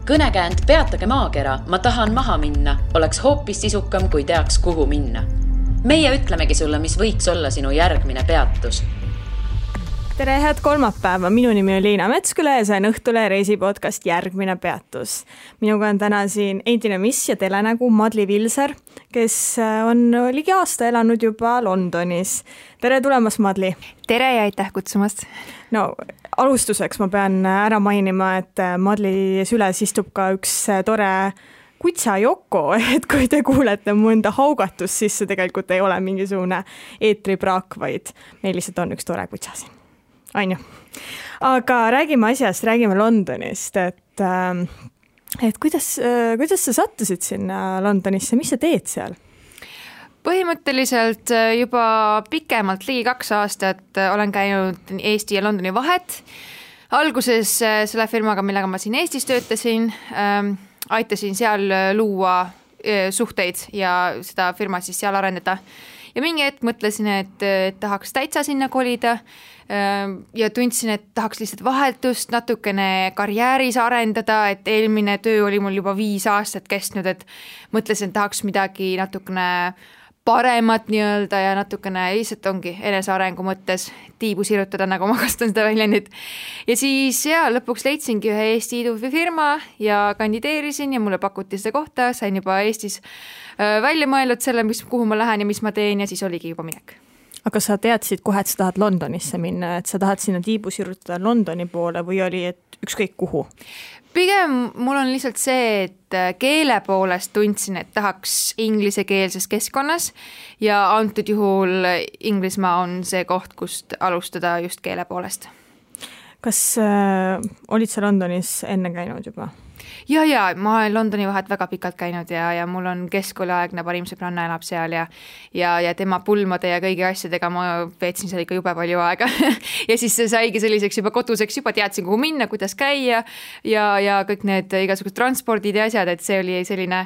Kõnekäänd Peatage maakera, ma tahan maha minna, oleks hoopis sisukam, kui teaks, kuhu minna. Meie ütlemegi sulle, mis võiks olla sinu järgmine peatus. Tere, head kolmapäeva. Minu nimi on Liina Metsküle ja see on Õhtule reisipodcast Järgmine peatus. Minuga on täna siin endine miss ja telenägu Madli Vilser, kes on ligi aasta elanud juba Londonis. Tere tulemast, Madli. Tere ja aitäh kutsumast. No, alustuseks ma pean ära mainima, et Madli süles istub ka üks tore kutsa Joko, et kui te kuulete mõnda haugatust, siis see tegelikult ei ole mingisugune eetripraak, vaid meil lihtsalt on üks tore kutsa siin. Ainu. Aga räägime asjast, räägime Londonist, et kuidas sa sattusid sinna Londonisse, mis sa teed seal? Põhimõtteliselt juba pikemalt, ligi 2 aastat olen käinud Eesti ja Londoni vahet. Alguses selle firmaga, millega ma siin Eestis töötasin, aitasin seal luua suhteid ja seda firma siis seal arendada. Ja mingi hetk mõtlesin, et tahaks täitsa sinna kolida ja tundsin, et tahaks lihtsalt vahetust, natukene karjääris arendada, et eelmine töö oli mul juba 5 aastat kestnud, et mõtlesin, et tahaks midagi natukene paremat nii-öelda ja natukene lihtsalt ongi enesearengu mõttes tiibu sirutada, nagu ma kasutan seda väljendit. Ja siis lõpuks leidsingi ühe Eesti idufirma ja kandideerisin ja mulle pakuti seda kohta, sain juba Eestis välja mõelnud selle, kuhu ma lähen ja mis ma teen ja siis oligi juba minek. Aga sa teadsid kohe, et sa tahad Londonisse minna, et sa tahad sinna tiibu sirutada Londoni poole või oli, et ükskõik kuhu? Pigem mul on lihtsalt see, et keele poolest tundsin, et tahaks inglisekeelses keskkonnas ja antud juhul Inglismaa on see koht, kust alustada just keele poolest. Kas olid sa Londonis enne käinud juba? Ja, ma olen Londoni vahet väga pikalt käinud ja mul on keskkooliaegne parim sõbranna elab seal ja tema pulmade ja kõigi asjadega ma veetsin seal ikka jube palju aega. Ja siis see saigi selliseks juba koduseks, juba teadsin, kuhu minna, kuidas käia ja kõik need igasugused transpordid ja asjad, et see oli selline,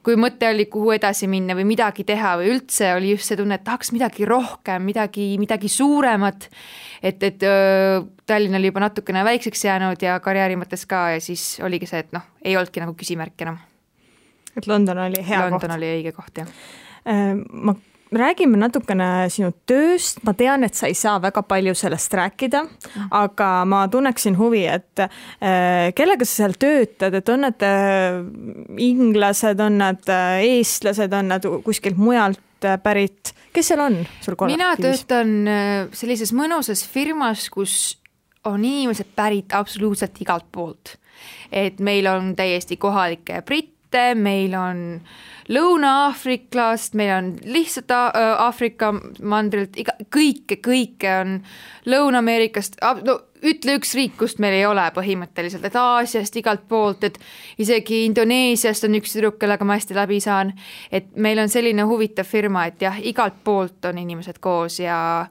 kui mõte oli, kuhu edasi minna või midagi teha või üldse oli just see tunne, et tahaks midagi rohkem, midagi suuremat, et Tallinn oli juba natukene väikseks jäänud ja karjääri mõttes ka ja siis oligi see, et ei olnudki nagu küsimärk enam. Et London oli hea koht. London oli õige koht, jah. Ma räägime natukene sinu tööst. Ma tean, et sa ei saa väga palju sellest rääkida, aga ma tunneksin huvi, et kellega sa seal töötad, et on nad inglased, on nad eestlased, on nad kuskilt mujalt pärit. Kes seal on sul kollektiivis? Mina töötan sellises mõnusas firmas, kus on inimesed pärit absoluutselt igalt poolt. Et meil on täiesti kohalikke britte, meil on Lõuna-Aafriklast, meil on lihtsalt Aafrika mandrilt, kõike on Lõuna-Ameerikast, ütle üks riik, kust meil ei ole põhimõtteliselt, et Aasiast igalt poolt, et isegi Indoneesiast on üks tüdruk, kellega ma hästi läbi saan, et meil on selline huvitav firma, et jah, igalt poolt on inimesed koos ja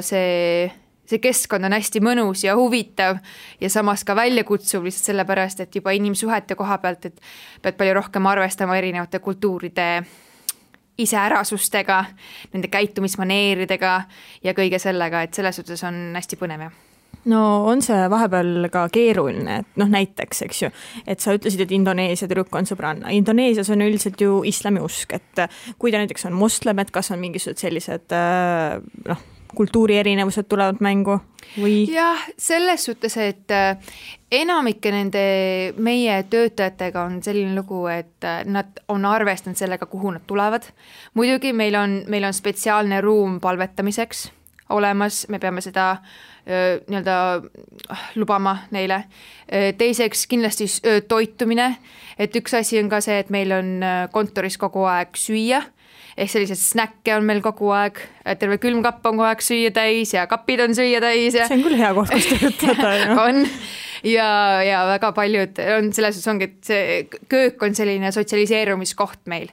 see keskkond on hästi mõnus ja huvitav ja samas ka väljakutsuv lihtsalt sellepärast, et juba inimsuhete koha pealt, et pead palju rohkem arvestama erinevate kultuuride iseärasustega, nende käitumismaneeridega ja kõige sellega, et selles suhtes on hästi põnev. No on see vahepeal ka keeruline, et näiteks, eks ju, et sa ütlesid, et Indoneesia tüdruk on sõbranna. Indoneesias on üldiselt ju islamiusk, et kui ta näiteks on moslem, et kas on mingisugused sellised kultuuri erinevused tulevad mängu või? Jah, selles suhtes, et enamike nende meie töötajatega on selline lugu, et nad on arvestanud sellega, kuhu nad tulevad. Muidugi meil on spetsiaalne ruum palvetamiseks olemas, me peame seda nii-öelda lubama neile. Teiseks kindlasti toitumine, et üks asi on ka see, et meil on kontoris kogu aeg süüa, ehk sellised snäkke on meil kogu aeg, terve külmkapp on kogu aeg süüa täis ja kapid on süüa täis. Ja see on küll hea koht, kus töötada. On. Ja väga paljud on selles ongi, et see köök on selline sotsialiseerumiskoht meil.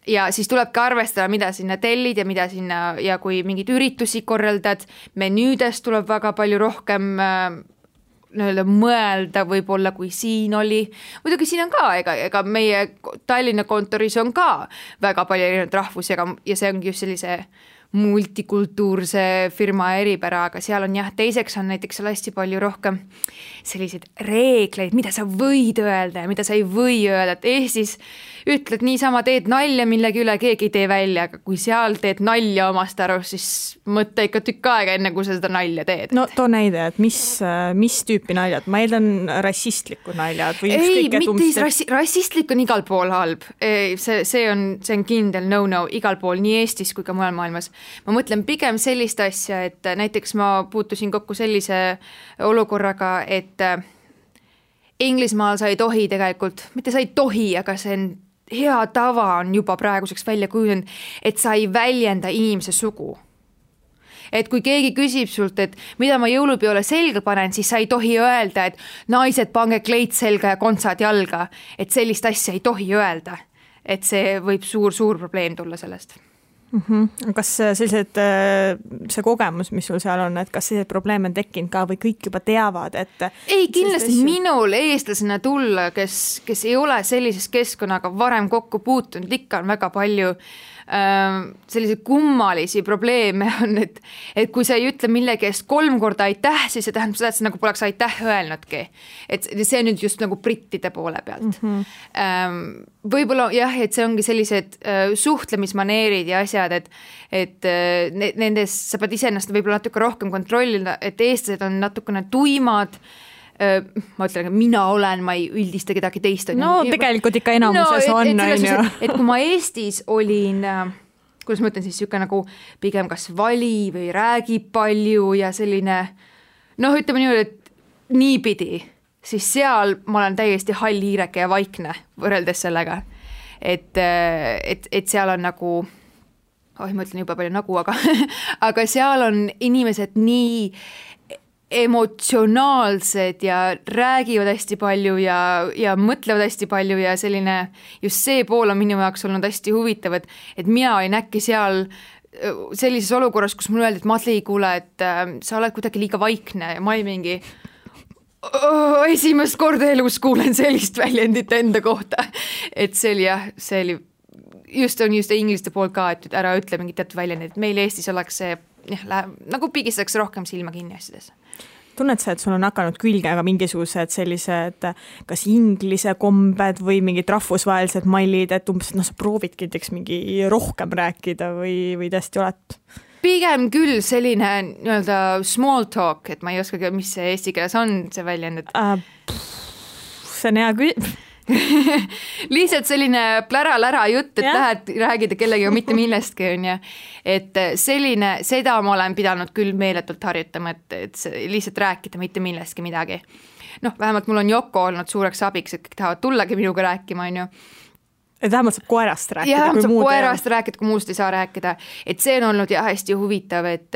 Ja siis tulebki arvestada, mida sinna tellid ja mida sinna, ja kui mingid üritusi korraldad, menüüdest tuleb väga palju rohkem mõelda võib-olla, kui siin oli. Muidugi siin on ka, ega meie Tallinna kontoris on ka väga palju erinevad rahvusi ja see ongi just sellise multikultuurse firma eripära, aga seal on jah, teiseks on näiteks seal hästi palju rohkem selliseid reegleid, mida sa võid öelda ja mida sa ei või öelda, et Eestis ütled niisama, teed nalja millegi üle, keegi ei tee välja, aga kui seal teed nalja omast arust, siis mõtle ikka tükk aega, enne kui sa seda nalja teed. No too näide, et mis tüüpi naljad, ma eeldan rassistlikud naljad või ükskõik, et mitte rassistlik on igal pool halb. See on kindel no-no igal pool, nii Eestis kui ka mujal maailmas. Ma mõtlen pigem sellist asja, et näiteks ma puutusin kokku sellise olukorraga, et Inglismaal sa ei tohi tegelikult, mitte sa ei tohi, aga see on hea tava on juba praeguseks välja kujunenud, et sa ei väljenda inimese sugu. Et kui keegi küsib sult, et mida ma jõulupeole selga panen, siis sa ei tohi öelda, et naised pange kleit selga ja kontsad jalga, et sellist asja ei tohi öelda. Et see võib suur probleem tulla sellest. Kas sellised, see kogemus, mis sul seal on, et kas sellised probleeme on tekkinud ka või kõik juba teavad, et ei, kindlasti minul eestlasena tulla, kes ei ole sellises keskkonnaga varem kokku puutunud, ikka on väga palju selliseid kummalisi probleeme on, et kui sa ei ütle millegi eest 3 korda aitäh, siis see tähendab seda, et sa nagu poleks aitäh öelnudki. Et see on nüüd just nagu brittide poole pealt. Võib-olla jah, et see ongi sellised suhtlemismaneerid ja asjad, et nendes sa pead iseennast võib-olla natuke rohkem kontrollida, et eestlased on natukene tuimad, ma ütlen, ma ei üldista kedagi teist. No tegelikult ikka enamuses on. Et kui ma Eestis olin, kuidas ma ütlen siis, siuke nagu pigem kas vali või räägib palju ja selline, ütleme nii, et niipidi, siis seal ma olen täiesti hall hiireke ja vaikne võrreldes sellega. Et seal on nagu, ma ütlen juba palju nagu, aga seal on inimesed nii emotsionaalsed ja räägivad hästi palju ja mõtlevad hästi palju ja selline, just see pool on minu jaoks olnud hästi huvitav, et mina olin äkki seal sellises olukorras, kus mulle öeldi, et Madli, kuule, et sa oled kuidagi liiga vaikne ja ma ei mingi esimest korda elus kuulen sellist väljendit enda kohta, et see oli just ingliste poolt ka, et ära ütle mingit teatud väljendit, et meil Eestis oleks see nagu pigistatakse rohkem silma kinni asjades. Tunned sa, et sul on hakanud külge aga mingisugused sellised kas inglise kombed või mingid rahvusvahelised mallid, et umbes, sa proovidki näiteks mingi rohkem rääkida või tõesti oled? Pigem küll selline nii-öelda small talk, et ma ei oskagi, mis see eesti keeles on, see väljend, et see on hea lihtsalt selline plära-lära jutt, et lähed räägida kellegiga mitte millestki, on ju. Et selline, seda ma olen pidanud küll meeletult harjutama, et lihtsalt rääkida mitte millestki midagi. Vähemalt mul on Yoko olnud suureks abiks, et kõik tahavad tullagi minuga rääkima, on ju. Et vähemalt saab koerast rääkida. Ja saab koerast rääkida, kui muust ei saa rääkida. Et see on olnud hästi huvitav, et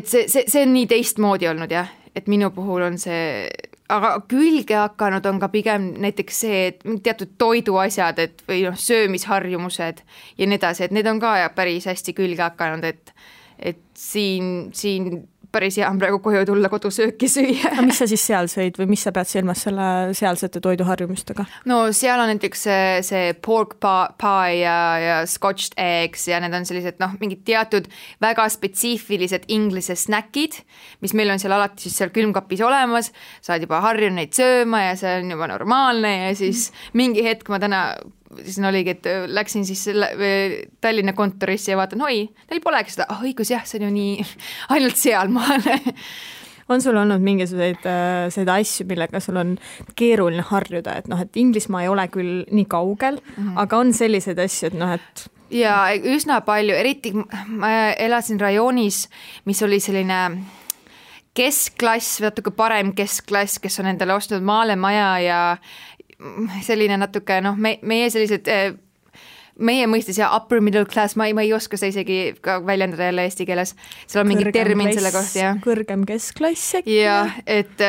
see on nii teistmoodi olnud, jah. Et minu puhul on see, aga külge hakanud on ka pigem näiteks see, et teatud toiduasjad, et või söömisharjumused ja nii edasi, et need on ka päris hästi külge hakanud, et siin päris hea on praegu koju tulla kodusööki süüa. Aga mis sa siis seal sõid või mis sa pead silmas selle sealsete toiduharjumustega? No seal on näiteks see pork pie ja scotched eggs ja need on sellised mingid teatud väga spetsiifilised inglise snäkid, mis meil on seal alati siis seal külmkapis olemas, saad juba harjunud neid sööma ja see on juba normaalne ja siis mingi hetk ma täna siis oligi, et läksin siis Tallinna kontorisse ja vaatan, neil polegi seda, õigus jah, see on ju nii ainult sealmaal. On sul olnud mingisuguseid asju, millega sul on keeruline harjuda, et Inglismaa ei ole küll nii kaugel, aga on sellised asju, et Ja üsna palju, eriti ma elasin rajoonis, mis oli selline keskklass, natuke parem keskklass, kes on endale ostnud maale maja ja selline natuke, meie sellised, meie mõistes ja upper middle class, ma ei oska seda isegi ka väljendada jälle eesti keeles, seal on mingi termin selle kohta, jah. Kõrgem keskklass äkki? Jah, et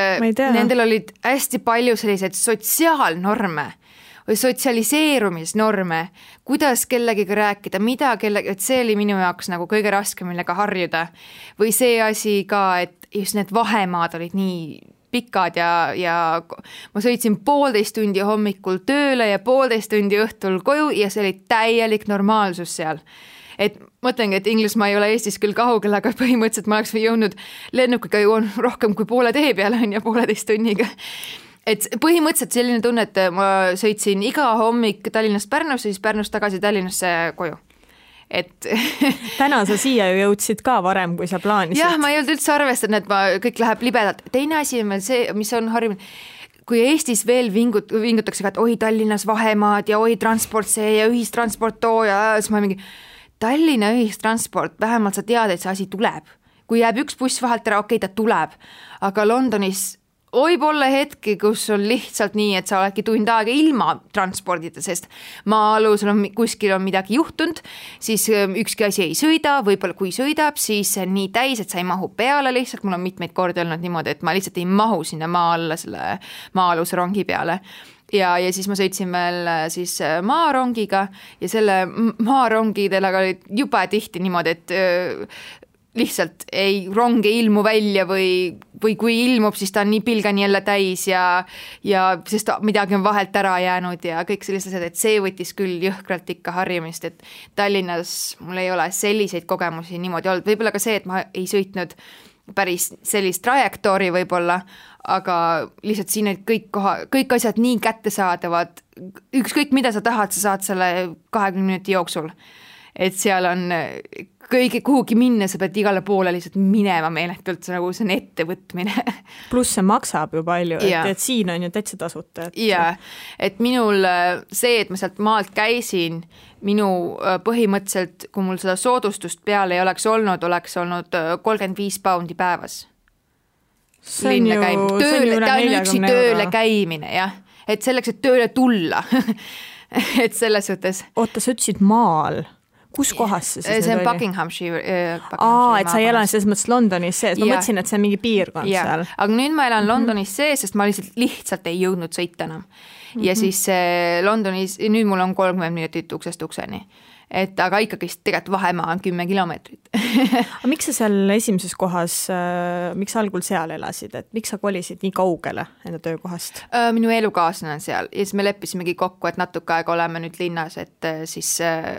nendel olid hästi palju selliseid sotsiaalnorme või sotsialiseerumisnorme, kuidas kellegiga rääkida, et see oli minu jaoks nagu kõige raskem, millega harjuda. Või see asi ka, et just need vahemaad olid nii pikad ja ma sõitsin 1,5 tundi hommikul tööle ja 1,5 tundi õhtul koju ja see oli täielik normaalsus seal. Et mõtlengi, et Inglismaa ei ole Eestis küll kaugel, aga põhimõtteliselt ma oleks jõudnud lennukiga jõuan rohkem kui poole tee peale on ja 1,5 tunniga. Et põhimõtteliselt selline tunne, et ma sõitsin iga hommik Tallinnast Pärnusse, siis Pärnust tagasi Tallinnasse koju. Et täna sa siia ju jõudsid ka varem, kui sa plaanisid. Jah, ma ei olnud üldse arvestanud, et kõik läheb libedalt. Teine asi on veel see, mis on harjunud, kui Eestis veel vingutakse, et oi Tallinnas vahemaad ja oi transport see ja ühistransport too ja siis ma mingi Tallinna ühistransport, vähemalt sa tead, et see asi tuleb. Kui jääb üks buss vahelt ära, okei, ta tuleb. Aga Londonis võib olla hetki, kus on lihtsalt nii, et sa oledki tund aega ilma transpordita, sest maa-alus kuskil on midagi juhtunud, siis ükski asi ei sõida, võib-olla kui sõidab, siis see on nii täis, et sa ei mahu peale lihtsalt, mul on mitmeid kordi olnud niimoodi, et ma lihtsalt ei mahu sinna maa alla selle maa-aluse rongi peale. Ja siis ma sõitsin veel siis maarongiga ja selle maarongidele oli juba tihti niimoodi, et lihtsalt rong ei ilmu välja või kui ilmub, siis ta on nii pilgani jälle täis ja sest midagi on vahelt ära jäänud ja kõik sellised asjad, et see võttis küll jõhkralt ikka harjumist, et Tallinnas mul ei ole selliseid kogemusi niimoodi olnud, võib-olla ka see, et ma ei sõitnud päris sellist trajektoori võib-olla, aga lihtsalt siin olid kõik asjad nii kättesaadavad, ükskõik mida sa tahad, sa saad selle 20 minuti jooksul, et seal on kõige kuhugi minna, sa pead igale poole lihtsalt minema meeletult, nagu see on ettevõtmine. Pluss see maksab ju palju, et siin on ju täitsa tasuta. Et minul see, et ma sealt maalt käisin, minu põhimõtteliselt, kui mul seda soodustust peale ei oleks olnud 35 poundi päevas. Linna käimine. Ta on üksi tööle käimine, jah. Et selleks, et tööle tulla. Et selles suhtes. Oota, sa ütlesid maal. Kus kohas see siis see on Buckinghamshire. Et sa ei elan selles mõttes Londonis sees. Ma mõtlesin, et see on mingi piirkond seal. Aga nüüd ma elan Londonis sees, sest ma lihtsalt ei jõudnud sõita enam. Ja siis Londonis, nüüd mul on 30 minutit uksest ukseni. Aga ikkagi tegelikult vahemaa on 10 kilomeetrit. Aga miks sa seal esimeses kohas, miks algul seal elasid, et miks sa kolisid nii kaugele enda töökohast? Minu elukaaslane on seal ja siis me leppisimegi kokku, et natuke aega oleme nüüd linnas, et siis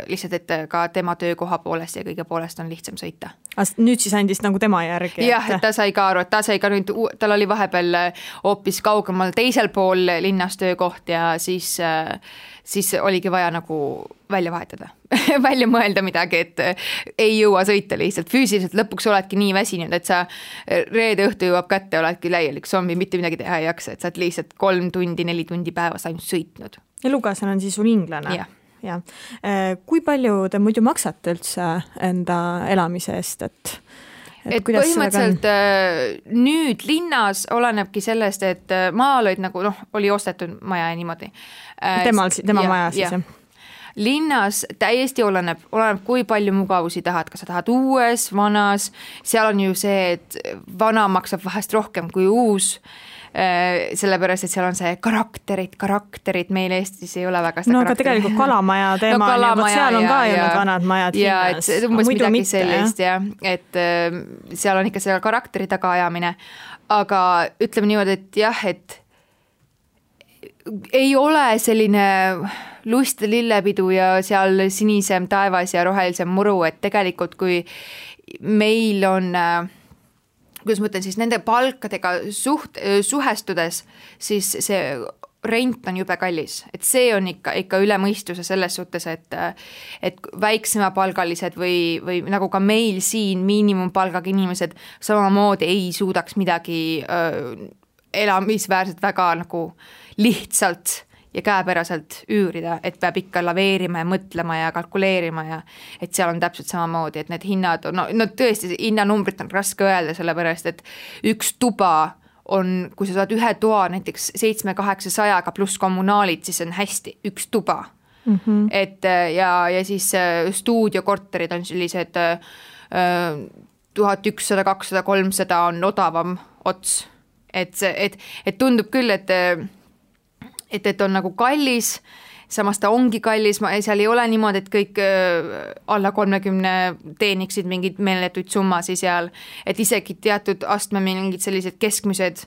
lihtsalt, et ka tema töökoha poolest ja kõige poolest on lihtsam sõita. Nüüd siis andis nagu tema järgi? Jah, et ta sai ka aru, et ta sai ka nüüd, tal oli vahepeal hoopis kaugemal teisel pool linnas töökoht ja siis oligi vaja nagu välja vahetada, välja mõelda midagi, et ei jõua sõita lihtsalt. Füüsiliselt lõpuks oledki nii väsinud, et sa reede õhtu jõuab kätte, oledki läielik zombi, mitte midagi teha ei jaksa, et sa oled lihtsalt 3 tundi, 4 tundi päevas ainult sõitnud. Elukaaslane on siis sul inglane? Ja. Kui palju te muidu maksate üldse enda elamise eest, et põhimõtteliselt nüüd linnas olenebki sellest, et maal olid nagu, oli ostetud maja ja niimoodi. Tema maja siis, jah? Linnas täiesti oleneb, kui palju mugavusi tahad, kas sa tahad uues, vanas, seal on ju see, et vana maksab vahest rohkem kui uus, sellepärast, et seal on see karakterid, meil Eestis ei ole väga seda karakterit. Aga tegelikult kalamaja teema seal on ka ju need vanad majad linnas. Ja umbes midagi sellist, et seal on ikka selle karakteri tagaajamine, aga ütleme niimoodi, et jah, et ei ole selline lust lillepidu ja seal sinisem taevas ja rohelisem muru, et tegelikult kui meil on, kuidas ma ütlen, siis nende palkadega suhestudes, siis see rent on jube kallis, et see on ikka üle mõistuse selles suhtes, et väiksemapalgalised või nagu ka meil siin miinimumpalgaga inimesed samamoodi ei suudaks midagi elamisväärselt väga nagu lihtsalt ja käepäraselt üürida, et peab ikka laveerima ja mõtlema ja kalkuleerima ja et seal on täpselt samamoodi, et need hinnad on, no tõesti hinnanumbrit on raske öelda, sellepärast, et üks tuba on, kui sa saad ühe toa näiteks 700-800 pluss kommunaalid, siis on hästi, üks tuba. Et ja siis stuudiokorterid on sellised 1100, 200, 300 on odavam ots. Et tundub küll, et on nagu kallis, samas ta ongi kallis, seal ei ole niimoodi, et kõik alla 30 teeniksid mingid meeletuid summasi seal, et isegi teatud astme mingid sellised keskmised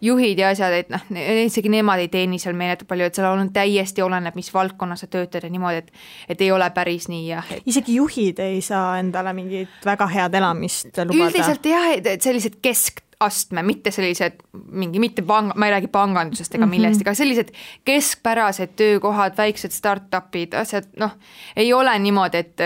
juhid ja asjad, et noh, isegi nemad ei teeni seal meeletult palju, et seal on täiesti oleneb, mis valdkonnas sa töötad ja niimoodi, et ei ole päris nii jah. Isegi juhid ei saa endale mingit väga head elamist lubada? Üldiselt jah, et sellised keskastme, mitte sellised mitte ma ei räägi pangandusest ega millest, aga sellised keskpärased töökohad, väiksed start-upid, asjad, noh, ei ole niimoodi, et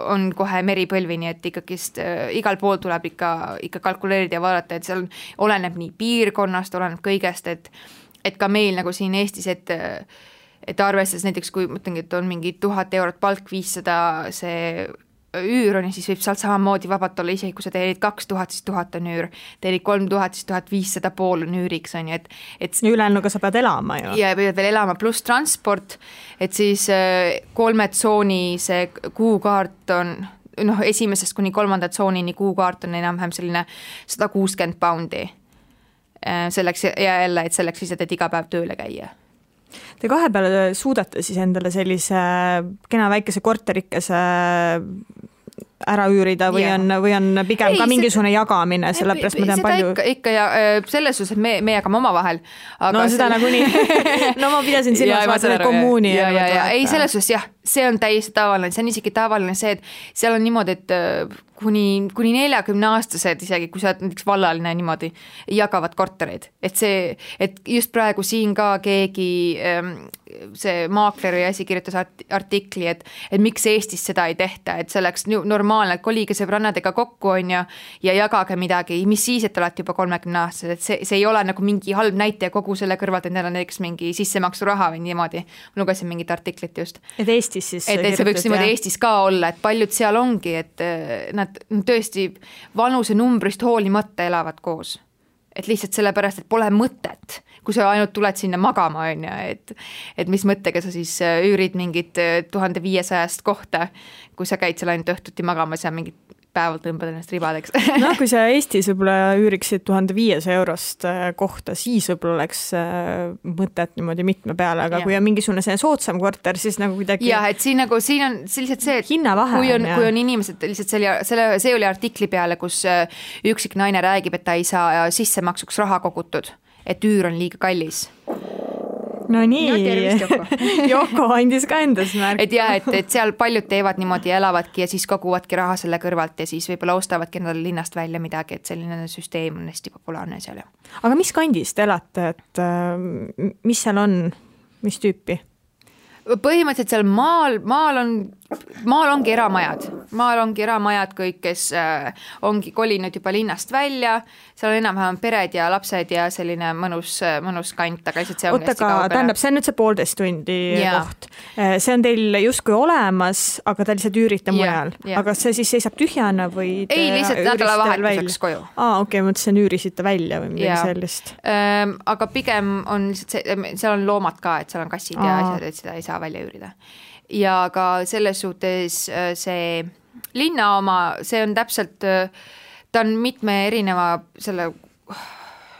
on kohe meripõlvini, et ikkagist igal pool tuleb ikka kalkuleerida ja vaadata, et seal oleneb nii piirkonnast, oleneb kõigest, et ka meil nagu siin Eestis, et arvestades näiteks, kui mõtlengi, et on mingi 1000 eurot palk, 500 see üür on ja siis võib sealt samamoodi vabalt olla isegi, kui sa teenid 2000, siis 1000 on üür, teenid 3000, siis 1500 pool on üüriks, on ju, et ülejäänuga sa pead elama ju. Ja pead veel elama, pluss transport, et siis 3 tsooni see kuukaart on, noh, esimesest kuni 3. tsoonini kuukaart on enam-vähem selline 160 poundi. Selleks ja jälle, et selleks lihtsalt, et iga päev tööle käia. Te kahe peale suudate siis endale sellise kena väikese korterikese ära üürida või on pigem ka mingisugune jagamine, sellepärast ma tean palju. Ikka ja selles suhtes, et me jagame oma vahel. No seda nagunii. No ma pidasin silmas vaata kommuuni. Ei, selles suhtes jah, see on täiesti tavaline, see on isegi tavaline see, et seal on niimoodi, et kuni 40-aastased isegi, kui sa oled näiteks vallaline niimoodi, jagavad kortereid. Et just praegu siin ka keegi see maakleri asi kirjutas artikli, et miks Eestis seda ei tehta, et see oleks normaalne, et kolige sõbrannadega kokku on ja jagage midagi, mis siis, et olete juba 30-aastased, et see ei ole nagu mingi halb näite kogu selle kõrvalt, et neil on näiteks mingi sissemaksu raha või niimoodi. Ma lugesin mingit artiklit just. Et Eestis siis et see võiks niimoodi Eestis ka olla, et paljud seal ongi, et nad tõesti vanuse numbrist hoolimata elavad koos. Et lihtsalt sellepärast, et pole mõtet, kui sa ainult tuled sinna magama, on ja, et mis mõttega sa siis üürid mingit 1500 kohta, kui sa käid seal ainult õhtuti magamas ja mingit päevalt tõmbad ennast ribadeks. No kui sa Eestis võib-olla üüriksid 1500 eurost kohta, siis võib-olla oleks mõtet niimoodi mitme peale, aga kui on mingisugune see soodsam korter, siis nagu kuidagi... Jah, et siin on lihtsalt see, et kui on inimesed, lihtsalt see oli artikli peale, kus üksik naine räägib, et ta ei saa sissemaksuks raha kogutud, et üür on liiga kallis. No nii, Joko andis ka endas märk. Et jah, et seal paljud teevad niimoodi ja elavadki ja siis koguvadki raha selle kõrvalt ja siis võib-olla ostavadki endale linnast välja midagi, et selline süsteem on hästi populaarne seal. Aga mis kandis te elate, et mis seal on, mis tüüpi? Põhimõtteliselt seal maal ongi eramajad kõik, kes ongi kolinud juba linnast välja, seal on enam-vähem pered ja lapsed ja selline mõnus kant, aga lihtsalt see on hästi kaugele. Tähendab, see on nüüd see 1,5 tundi koht. See on teil justkui olemas, aga te lihtsalt üürite mujal. Aga see siis seisab tühjana või te ei, lihtsalt nädalavahetuseks koju. Okei, mõtlesin üürisite välja või midagi sellist. Aga pigem on lihtsalt seal on loomad ka, et seal on kassid ja asjad, et seda ei saa välja üürida. Ja ka selles suhtes see linna oma, see on täpselt, ta on mitme erineva selle,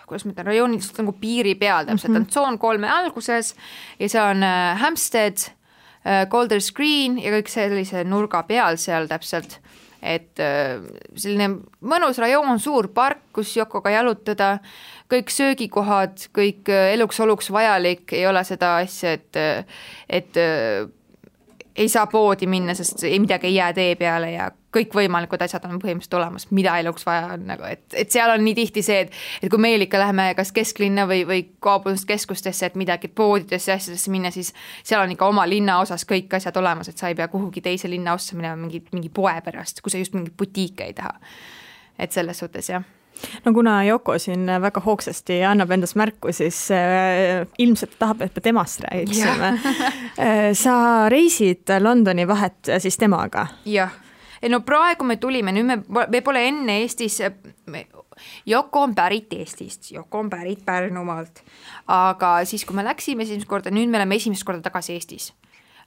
kuidas ma ütlen, rajoonid nagu piiri peal täpselt, on tsoon 3 alguses ja see on Hampstead, Golders Green ja kõik sellise nurga peal seal täpselt, et selline mõnus rajoon, suur park, kus Jokoga jalutada, kõik söögikohad, kõik eluks-oluks vajalik, ei ole seda asja, et ei saa poodi minna, sest midagi ei jää tee peale ja kõik võimalikud asjad on põhimõtteliselt olemas, mida eluks vaja on, nagu, et seal on nii tihti see, et kui meil ikka läheme kas kesklinna või kaubanduskeskustesse, et midagi poodidesse ja asjadesse minna, siis seal on ikka oma linna osas kõik asjad olemas, et sa ei pea kuhugi teise linna ossa minema mingi poe pärast, kui sa just mingit butiike ei taha. Et selles suhtes, jah. No kuna Joko siin väga hoogsasti annab endast märku, siis ilmselt tahab, et me temast räägiksime. Sa reisid Londoni vahet siis temaga? Jah. No praegu me tulime, nüüd me pole enne Eestis, Joko on pärit Eestist, Joko on pärit Pärnumaalt, aga siis kui me läksime esimest korda, nüüd me oleme esimest korda tagasi Eestis,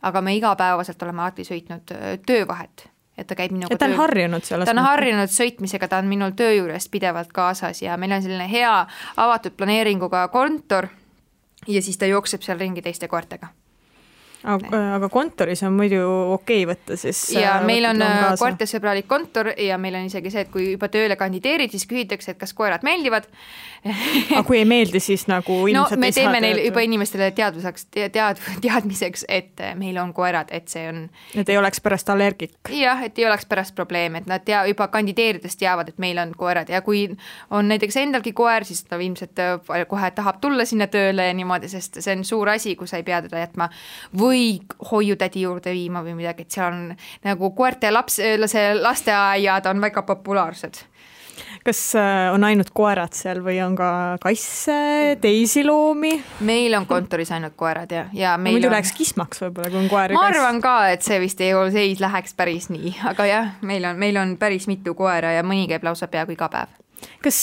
aga me igapäevaselt oleme alati sõitnud töövahet. Et ta käib minuga ta on harjunud selles. Ta on harjunud sõitmisega, ta on minul töö juures pidevalt kaasas ja meil on selline hea avatud planeeringuga kontor ja siis ta jookseb seal ringi teiste koertega. Aga kontoris on muidu okei võtta siis. Ja meil on koertesõbralik kontor ja meil on isegi see, et kui juba tööle kandideerid, siis küsitakse, et kas koerad meeldivad. Aga kui ei meeldi, siis nagu ilmselt me teeme neil juba inimestele teadmiseks, et meil on koerad, et see on... Et ei oleks pärast allergik. Jah, et ei oleks pärast probleem, et nad juba kandideerides teavad, et meil on koerad ja kui on näiteks endalgi koer, siis ta ilmselt kohe tahab tulla sinna tööle ja niimoodi, sest see on suur asi, kui sa ei pea teda jätma või hoiutädi juurde viima või midagi, et seal on nagu koerte lasteaiad on väga populaarsed. Kas on ainult koerad seal või on ka kasse, teisi loomi? Meil on kontoris ainult koerad ja meil muidu läheks kismaks võib-olla, kui on koer ja kass. Ma arvan ka, et see vist ei läheks päris nii, aga jah, meil on päris mitu koera ja mõni käib lausa peaaegu iga päev. Kas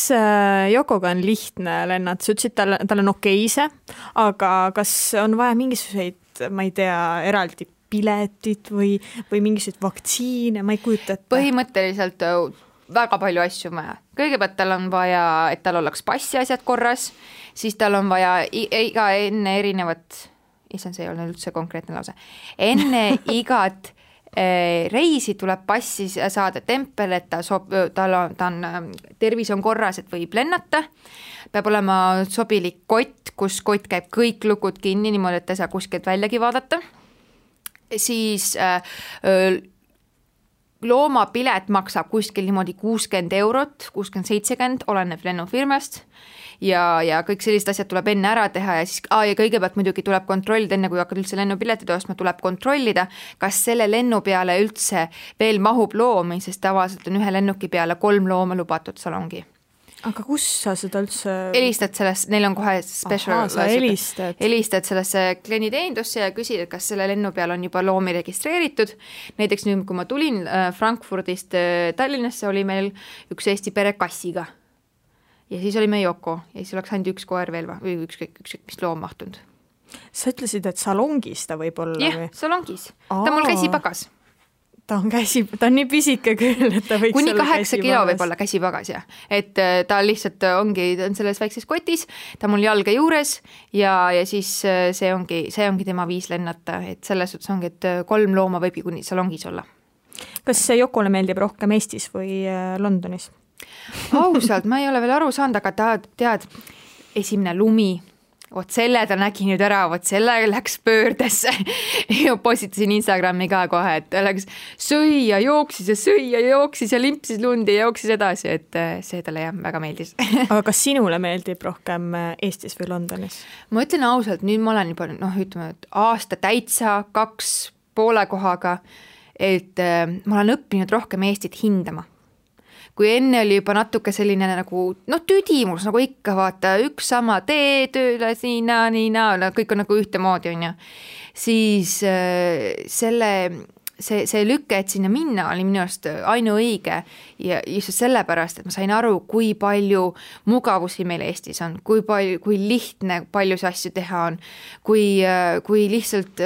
Yokoga on lihtne lennata? Sa ütlesid, tal on okeise, aga kas on vaja mingisuguseid, ma ei tea, eraldi piletit või mingisuguseid vaktsiine, ma ei kujuta ette. Põhimõtteliselt väga palju asju vaja. Kõigepealt tal on vaja, et tal oleks passi asjad korras, siis tal on vaja enne erinevat, see ei olnud üldse konkreetne lause, enne igat reisi tuleb passi saada tempel, et tal on tervis on korras, et võib lennata. Peab olema sobilik kott, kus kott käib kõik lukud kinni, niimoodi, et ei saa kuskilt väljagi vaadata. Siis loomapilet maksab kuskil niimoodi 60 €, 60-70, oleneb lennufirmast ja kõik sellised asjad tuleb enne ära teha ja siis ja kõigepealt muidugi tuleb kontrollida, enne kui hakkad üldse lennupiletid ostma, tuleb kontrollida, kas selle lennu peale üldse veel mahub loomi, sest tavaliselt on ühe lennuki peale 3 looma lubatud salongi. Aga kus sa seda üldse... Helistad sellest, neil on kohe special... Helistad sellesse klienditeenindusse ja küsid, et kas selle lennu peal on juba loomi registreeritud. Näiteks nüüd, kui ma tulin Frankfurdist Tallinnasse, oli meil üks Eesti pere kassiga. Ja siis oli me Yoko ja siis oleks ainult üks koer veel või ükskõik mis loom mahtunud. Sa ütlesid, et salongis ta võib olla? Jah, salongis. Ta mul käsipagas. Ta on nii pisike küll, et ta võiks kuni 8 kilo võib olla käsipagas, jah. Et ta lihtsalt ta on selles väikses kotis, ta mul jalga juures ja siis see ongi tema viis lennata, et selles suhtes ongi, et 3 looma võibki kuni salongis olla. Kas Yokole meeldib rohkem Eestis või Londonis? Ausalt, ma ei ole veel aru saanud, aga ta tead, esimene lumi, selle ta nägi nüüd ära, selle läks pöördesse ja postitasin Instagrami ka kohe, et ta läks sõi ja jooksis ja limpsis lundi ja jooksis edasi, et see talle jah, väga meeldis. Aga kas sinule meeldib rohkem Eestis või Londonis? Ma ütlen ausalt, nüüd ma olen juba ütleme, et aasta täitsa 2 poole kohaga, et ma olen õppinud rohkem Eestit hindama. Kui enne oli juba natuke selline nagu, tüdimus, nagu ikka vaata, üks sama tee tööle, nii, kõik on nagu ühte moodi, on ju. Siis see lükke, et sinna minna, oli minu arust ainuõige ja just sellepärast, et ma sain aru, kui palju mugavusi meil Eestis on, kui lihtne paljusid asju teha on, kui lihtsalt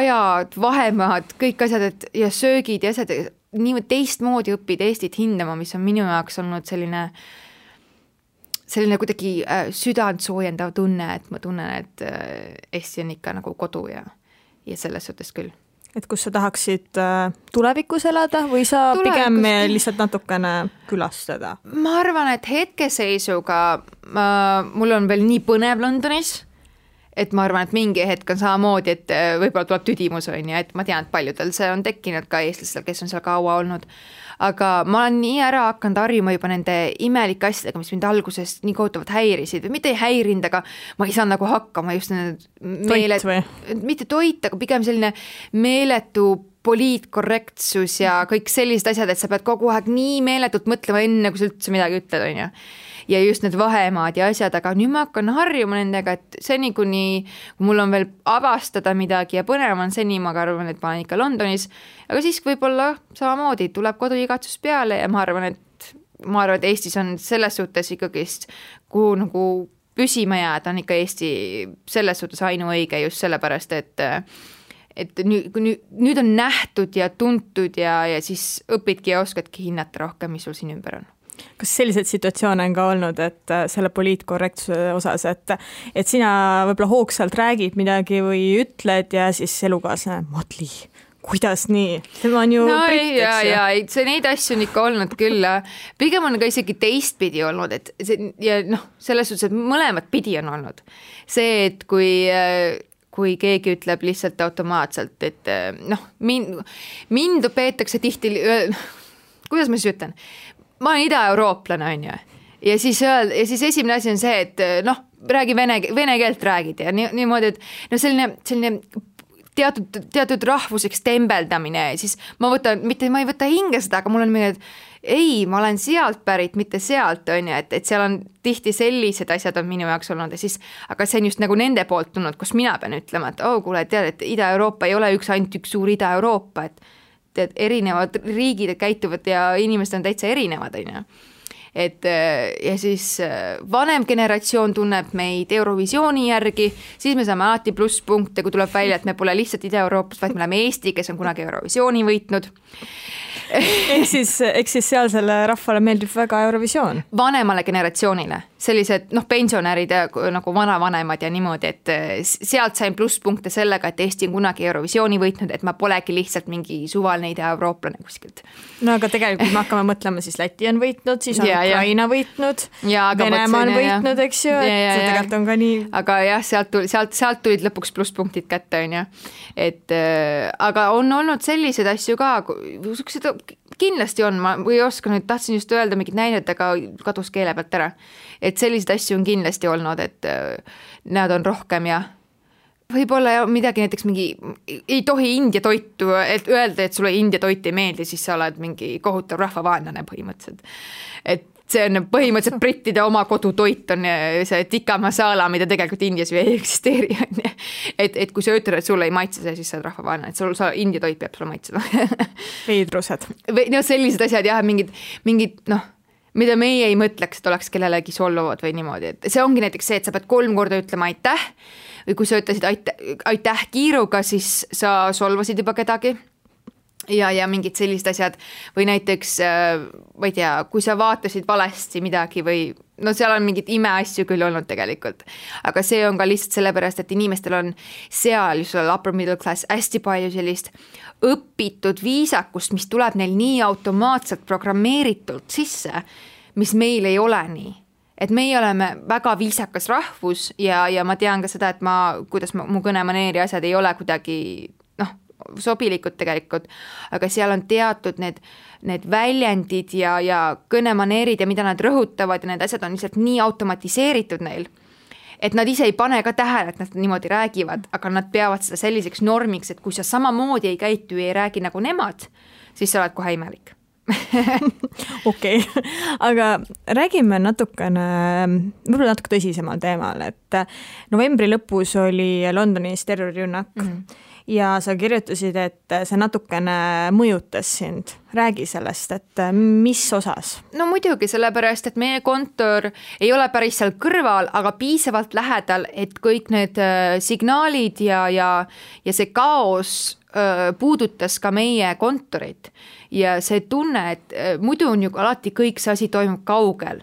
ajad, vahemaad, kõik asjad ja söögid ja asjad, nii teistmoodi õppida Eestit hindama, mis on minu jaoks olnud selline kuidagi südant soojendav tunne, et ma tunnen, et Eesti on ikka nagu kodu ja selles suhtes küll. Et kus sa tahaksid tulevikus elada või sa pigem lihtsalt natukene külastada? Ma arvan, et hetkeseisuga mul on veel nii põnev Londonis, et ma arvan, et mingi hetk on samamoodi, et võib-olla tuleb tüdimus, on ja et ma tean, et paljudel see on tekkinud ka eestlastel, kes on seal kaua olnud. Aga ma olen nii ära hakanud harjuma juba nende imelike asjadega, mis mind alguses nii kohutavalt häirisid või mitte ei häirinud, aga ma ei saa nagu hakkama just mitte toit, aga pigem selline meeletu poliitkorrektsus ja kõik sellised asjad, et sa pead kogu aeg nii meeletult mõtlema enne, kui sa üldse midagi ütled, on ju. Ja just need vahemaad ja asjad, aga nüüd ma hakkan harjuma nendega, et seni kuni mul on veel avastada midagi ja põnev on seni, ma arvan, et ma olen ikka Londonis, aga siis võib-olla samamoodi tuleb koduigatsus peale ja ma arvan, et Eestis on selles suhtes ikkagist, kuhu nagu püsima jääda, on ikka Eesti selles suhtes ainuõige just sellepärast, et nüüd on nähtud ja tuntud ja siis õpidki ja oskadki hinnata rohkem, mis sul siin ümber on. Kas selliseid situatsioone on ka olnud, et selle poliitkorrektsuse osas, et sina võib-olla hoogsalt räägid midagi või ütled ja siis elukaaslane, Madli, kuidas nii? Tema on ju britt, eks ju. See neid asju on ikka olnud küll. Pigem on ka isegi teistpidi olnud, et ja selles suhtes, et mõlemat pidi on olnud. See, et kui keegi ütleb lihtsalt automaatselt, et mind peetakse tihti, kuidas ma siis ütlen, ma olen ida-eurooplane, on ju. Ja siis esimene asi on see, et räägi vene keelt räägid ja niimoodi, et selline teatud rahvuseks tembeldamine, siis ma ei võta hinge seda, aga mul on mingi, et ei, ma olen sealt pärit, mitte sealt, on ju, et seal on tihti sellised asjad on minu jaoks olnud ja siis, aga see on just nagu nende poolt tulnud, kus mina pean ütlema, et kuule, tead, et Ida-Euroopa ei ole ainult üks suur Ida-Euroopa, et erinevad riigid käituvad ja inimesed on täitsa erinevad, on ju. Ja siis vanem generatsioon tunneb meid Eurovisiooni järgi, siis me saame alati plusspunkte, kui tuleb välja, et me pole lihtsalt Ida-Euroopast, vaid me oleme Eesti, kes on kunagi Eurovisiooni võitnud. Eks siis sealsele rahvale meeldib väga Eurovisioon. Vanemale generatsioonile, sellised pensionärid nagu vanavanemad ja niimoodi, et sealt sain plusspunkte sellega, et Eesti on kunagi Eurovisiooni võitnud, et ma polegi lihtsalt mingi suvaline ida-eurooplane kuskilt. No aga tegelikult me hakkame mõtlema, siis Läti on võitnud, siis on Ukraina võitnud, Venemaa on võitnud, eks ju, et see tegelikult on ka nii. Aga jah, sealt tulid lõpuks plusspunktid kätte, on ju. Aga on olnud sellised asju ka, kindlasti on, ma ei oska nüüd, tahtsin just öelda mingid näidet, aga kadus keele pealt ära. Et sellised asju on kindlasti olnud, et nad on rohkem ja võib-olla midagi näiteks mingi, ei tohi India toitu, et öelda, et sulle India toit ei meeldi, siis sa oled mingi kohutav rahvavaenlane põhimõtteliselt. Et see on põhimõtteliselt brittide oma kodutoit on see tikka masala, mida tegelikult Indias ei eksisteeri. Et kui sa ütled, et sulle ei maitse see, siis sa oled rahvavaenlane, et India toit peab sulle maitsema. Veidrused. Sellised asjad jah, mingid mida meie ei mõtleks, et oleks kellelegi solvuvad või niimoodi. Et see ongi näiteks see, et sa pead 3 korda ütlema aitäh või kui sa ütlesid aitäh kiiruga, siis sa solvasid juba kedagi. Ja mingid sellised asjad või näiteks, ma ei tea, kui sa vaatasid valesti midagi või seal on mingid imeasju küll olnud tegelikult, aga see on ka lihtsalt sellepärast, et inimestel on seal just upper middle class hästi palju sellist õpitud viisakust, mis tuleb neil nii automaatselt programmeeritult sisse, mis meil ei ole nii. Et meie oleme väga viisakas rahvus ja ma tean ka seda, et kuidas mu kõnemaneeri asjad ei ole kuidagi sobilikud tegelikult, aga seal on teatud need väljendid ja kõnemaneerid ja mida nad rõhutavad ja need asjad on lihtsalt nii automatiseeritud neil, et nad ise ei pane ka tähele, et nad niimoodi räägivad, aga nad peavad seda selliseks normiks, et kui sa samamoodi ei käitu ja ei räägi nagu nemad, siis sa oled kohe imelik. Okei, aga räägime natukene, võib-olla natuke tõsisemal teemal, et novembri lõpus oli Londonis terrorirünnak ja sa kirjutasid, et see natukene mõjutas sind. Räägi sellest, et mis osas? No muidugi, sellepärast, et meie kontor ei ole päris seal kõrval, aga piisavalt lähedal, et kõik need signaalid ja see kaos puudutas ka meie kontorit ja see tunne, et muidu on ju alati kõik see asi toimub kaugel.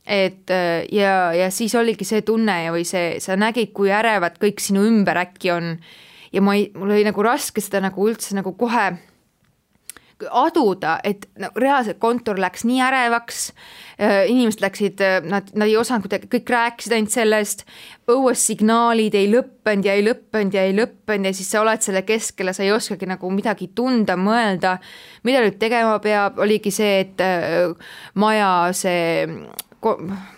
Ja siis oligi see tunne või sa nägid, kui ärevad kõik sinu ümber äkki on ja mul oli nagu raske seda nagu üldse nagu kohe aduda, et reaalselt kontor läks nii ärevaks, inimesed läksid, nad ei osanud kuidagi, kõik rääkisid ainult sellest, õues signaalid ei lõppenud ja siis sa oled selle keskel ja sa ei oskagi nagu midagi tunda, mõelda, mida nüüd tegema peab, oligi see, et maja see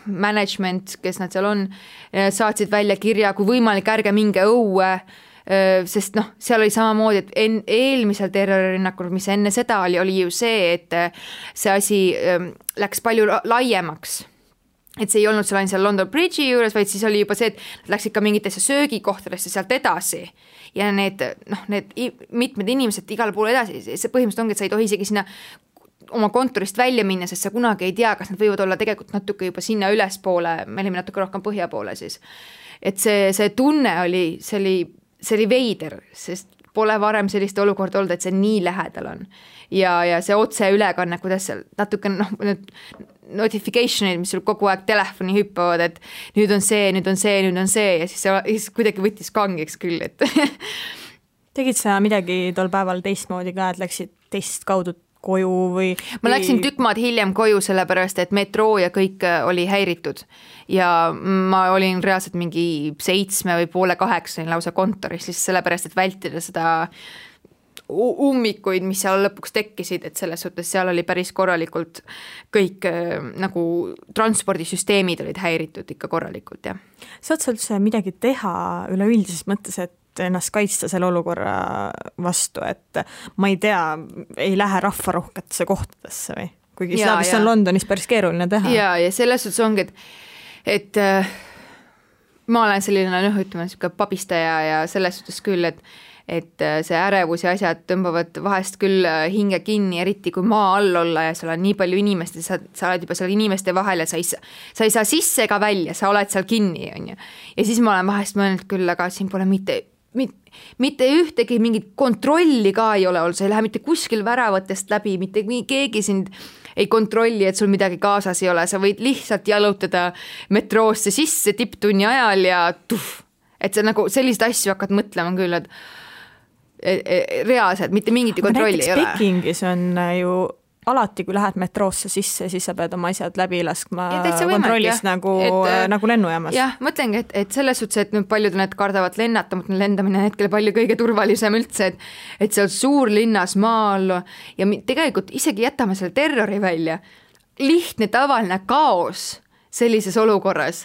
management, kes nad seal on, saatsid välja kirja, kui võimalik, ärge minge õue, sest seal oli samamoodi, et eelmisel terroririnnakul, mis enne seda oli ju see, et see asi läks palju laiemaks. Et see ei olnud seal ainult seal London Bridge'i juures, vaid siis oli juba see, et nad läksid ka mingitesse söögikohtadesse sealt edasi ja need mitmed inimesed igal pool edasi, see põhimõtteliselt ongi, et sa ei tohi isegi sinna oma kontorist välja minna, sest sa kunagi ei tea, kas nad võivad olla tegelikult natuke juba sinna ülespoole, me olime natuke rohkem põhja poole siis. Et see tunne oli, see oli veider, sest pole varem sellist olukorda olnud, et see nii lähedal on. Ja see otse ülekanne, kuidas seal natuke notification'id, mis sul kogu aeg telefoni hüppavad, et nüüd on see ja siis kuidagi võttis kangeks küll, et tegid sa midagi tol päeval teistmoodi ka, et läksid teist kaudu koju või? Ma läksin tükk maad hiljem koju, sellepärast et metroo ja kõik oli häiritud ja ma olin reaalselt mingi 7 või poole 8 lausa kontoris, lihtsalt sellepärast, et vältida seda ummikuid, mis seal lõpuks tekkisid, et selles suhtes seal oli päris korralikult kõik nagu transpordisüsteemid olid häiritud ikka korralikult, jah. Saad sa üldse midagi teha üleüldises mõttes, et ennast kaitsta selle olukorra vastu, et ma ei tea, ei lähe rahvarohketesse kohtadesse või? Kuigi seda vist on Londonis päris keeruline teha. Ja selles suhtes ongi, et ma olen selline, ütleme, pabistaja ja selles suhtes küll, et see ärevus ja asjad tõmbavad vahest küll hinge kinni, eriti kui maa all olla ja seal on nii palju inimest, sa oled juba seal inimeste vahel ja sa ei saa sisse ega välja, sa oled seal kinni, on ju. Ja siis ma olen vahest mõelnud küll, aga siin pole mitte ühtegi mingit kontrolli ka ei ole olnud, sa ei lähe mitte kuskil väravatest läbi, mitte keegi sind ei kontrolli, et sul midagi kaasas ei ole, sa võid lihtsalt jalutada metroosse sisse tipptunni ajal ja et sa nagu sellist asju hakkad mõtlema küll, et reaalselt mitte mingit kontrolli ei ole. Pekingis on ju alati, kui lähed metroosse sisse, siis sa pead oma asjad läbi laskma kontrollist nagu lennujaamas. Jah, mõtlengi, et selles suhtes, et nüüd paljud need kardavad lennata, mõtlen lendamine hetkel palju kõige turvalisem üldse, et seal suurlinnas maal ja tegelikult isegi jätame selle terrori välja. Lihtne tavaline kaos sellises olukorras.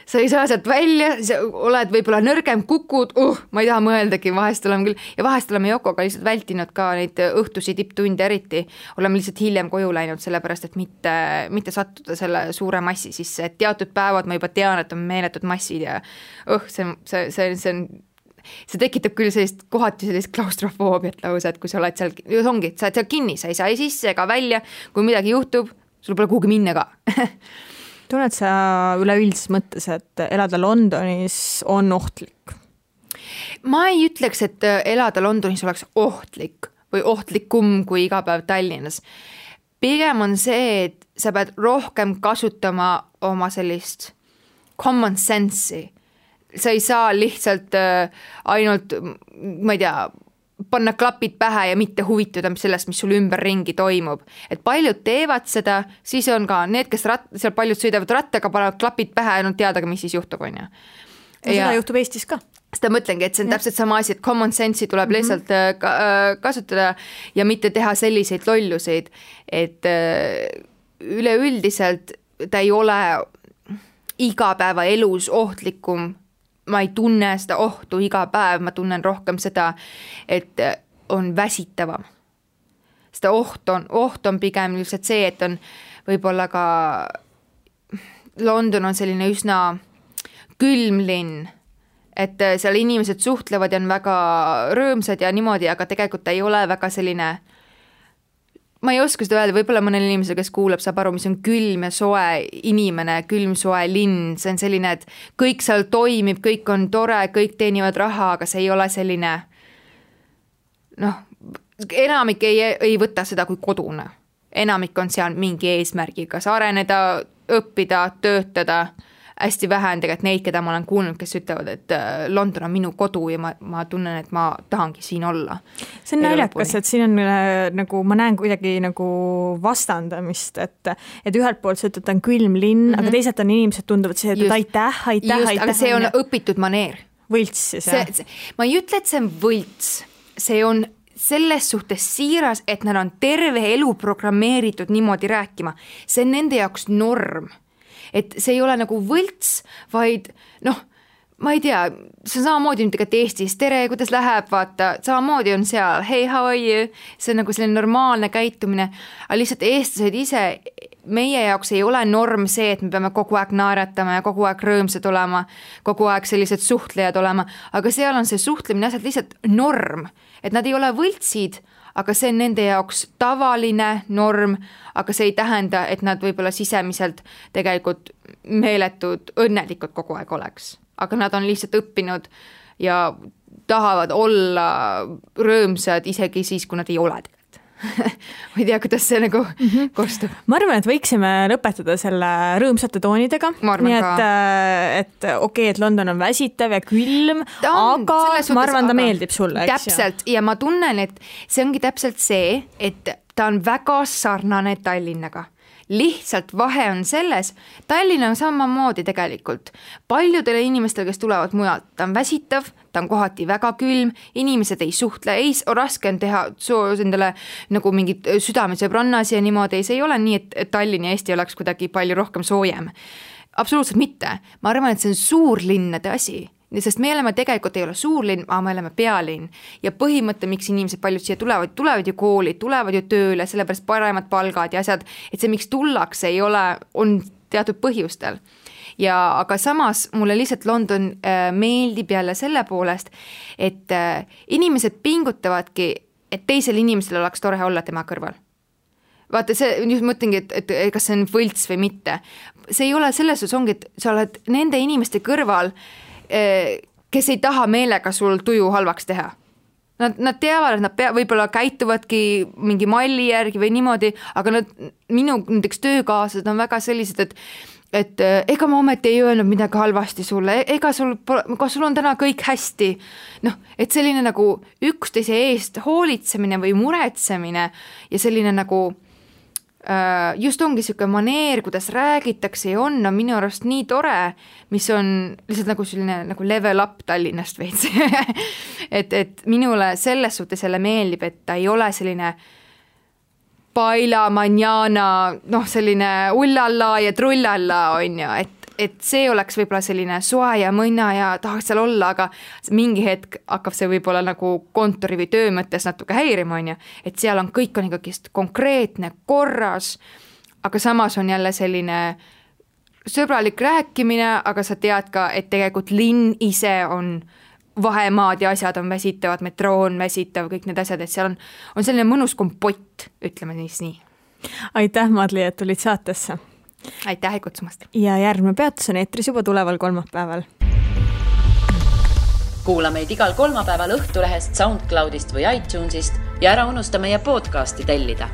Sa ei saa sealt välja, sa oled võib-olla nõrgem, kukud, ma ei taha mõeldagi, vahest oleme küll, ja vahest oleme Jokoga lihtsalt vältinud ka neid õhtusi tipptunde eriti, oleme lihtsalt hiljem koju läinud, sellepärast, et mitte sattuda selle suure massi sisse, et teatud päevad ma juba tean, et on meeletud massid ja see tekitab küll kohati sellist klaustrofoobiat lausa, et kui sa oled seal, ongi, sa oled seal kinni, sa ei saa ei sisse ega välja, kui midagi juhtub, sul pole kuhugi minna ka. Tunned sa üleüldises mõttes, et elada Londonis on ohtlik? Ma ei ütleks, et elada Londonis oleks ohtlik või ohtlikum kui iga päev Tallinnas. Pigem on see, et sa pead rohkem kasutama oma sellist common sense'i. Sa ei saa lihtsalt ainult, ma ei tea, panna klapid pähe ja mitte huvituda sellest, mis sul ümber ringi toimub. Et paljud teevad seda, siis on ka need, kes seal paljud sõidavad rattaga, panevad klapid pähe ja nad teadagi, mis siis juhtub, on ju. Seda juhtub Eestis ka. Seda mõtlengi, et see on täpselt sama asi, et common sense'i tuleb lihtsalt kasutada ja mitte teha selliseid lolluseid, et üleüldiselt ta ei ole igapäeva elus ohtlikum. Ma ei tunne seda ohtu iga päev, ma tunnen rohkem seda, et on väsitavam. Seda oht on pigem lihtsalt see, et on võib-olla ka London on selline üsna külm linn, et seal inimesed suhtlevad ja on väga rõõmsad ja niimoodi, aga tegelikult ei ole väga selline, ma ei oska seda öelda, võib-olla mõnel inimesel, kes kuulab, saab aru, mis on külm ja soe inimene, külm soe linn, see on selline, et kõik seal toimib, kõik on tore, kõik teenivad raha, aga see ei ole selline, enamik ei võta seda kui kodune. Enamik on seal mingi eesmärgiga, kas areneda, õppida, töötada, hästi vähe on tegelikult neid, keda ma olen kuulnud, kes ütlevad, et London on minu kodu ja ma tunnen, et ma tahangi siin olla. See on naljakas, et siin on nagu, ma näen kuidagi nagu vastandamist, et ühelt poolt see, et on külm linn, aga teisalt on inimesed tunduvad see, et aitäh. Aga see on õpitud maneer. Võlts siis, jah? Ma ei ütle, et see on võlts, see on selles suhtes siiras, et nad on terve elu programmeeritud niimoodi rääkima. See on nende jaoks norm. Et see ei ole nagu võlts, vaid ma ei tea, see on samamoodi tegelikult Eestis, tere, kuidas läheb, vaata, samamoodi on seal, hey, how are you, see on nagu selline normaalne käitumine, aga lihtsalt eestlased ise, meie jaoks ei ole norm see, et me peame kogu aeg naeratama ja kogu aeg rõõmsad olema, kogu aeg sellised suhtlejad olema, aga seal on see suhtlemine asjad lihtsalt norm, et nad ei ole võltsid, aga see on nende jaoks tavaline norm, aga see ei tähenda, et nad võib-olla sisemiselt tegelikult meeletud õnnelikud kogu aeg oleks. Aga nad on lihtsalt õppinud ja tahavad olla rõõmsad isegi siis, kui nad ei ole tegelikult. ma ei tea, kuidas see nagu kostub. Ma arvan, et võiksime lõpetada selle rõõmsate toonidega. Nii et okei, et London on väsitav ja külm, aga ma arvan, ta meeldib sulle. Täpselt, ja ma tunnen, et see ongi täpselt see, et ta on väga sarnane Tallinnaga. Lihtsalt vahe on selles, Tallinn on samamoodi tegelikult. Paljudele inimestele, kes tulevad mujalt, ta on väsitav, ta on kohati väga külm, inimesed ei suhtle, raske on teha endale nagu mingid südamesõbrannas ja niimoodi, see ei ole nii, et Tallinn ja Eesti oleks kuidagi palju rohkem soojem. Absoluutselt mitte. Ma arvan, et see on suurlinnade asi. Sest me oleme tegelikult ei ole suurlinn, aga me oleme pealinn ja põhimõte, miks inimesed paljud siia tulevad ju kooli, tulevad ju tööle, sellepärast paremad palgad ja asjad, et see, miks tullakse, ei ole, on teatud põhjustel. Aga samas mulle lihtsalt London meeldib jälle selle poolest, et inimesed pingutavadki, et teisel inimesel oleks tore olla tema kõrval. Vaata, see just mõtlengi, et kas see on võlts või mitte. See ei ole selles, ongi, et sa oled nende inimeste kõrval, kes ei taha meelega sul tuju halvaks teha. Nad teavad, et nad võib-olla käituvadki mingi malli järgi või niimoodi, aga minu näiteks töökaaslased on väga sellised, et ega ma ometi ei öelnud midagi halvasti sulle, kas sul on täna kõik hästi. Et selline nagu üksteise eest hoolitsemine või muretsemine ja selline nagu just ongi selline maneer, kuidas räägitakse ja on minu arust nii tore, mis on lihtsalt nagu selline nagu level up Tallinnast veits. et minule selles suhtes jälle meeldib, et ta ei ole selline paila, manjana, selline ullalla ja trullalla on ju, et see oleks võib-olla selline soe ja mõnna ja tahaks seal olla, aga mingi hetk hakkab see võib-olla nagu kontori või töö mõttes natuke häirima, on ju, et seal on kõik on ikkagi konkreetne, korras, aga samas on jälle selline sõbralik rääkimine, aga sa tead ka, et tegelikult linn ise on vahemaad ja asjad on väsitavad, metroo on väsitav, kõik need asjad, et seal on selline mõnus kompott, ütleme nii. Aitäh, Madli, et tulid saatesse. Aitäh kutsumast. Ja järgmine peatus on eetris juba tuleval kolmapäeval. Kuula meid igal kolmapäeval Õhtulehest, SoundCloudist või iTunesist ja ära unusta meie podcasti tellida.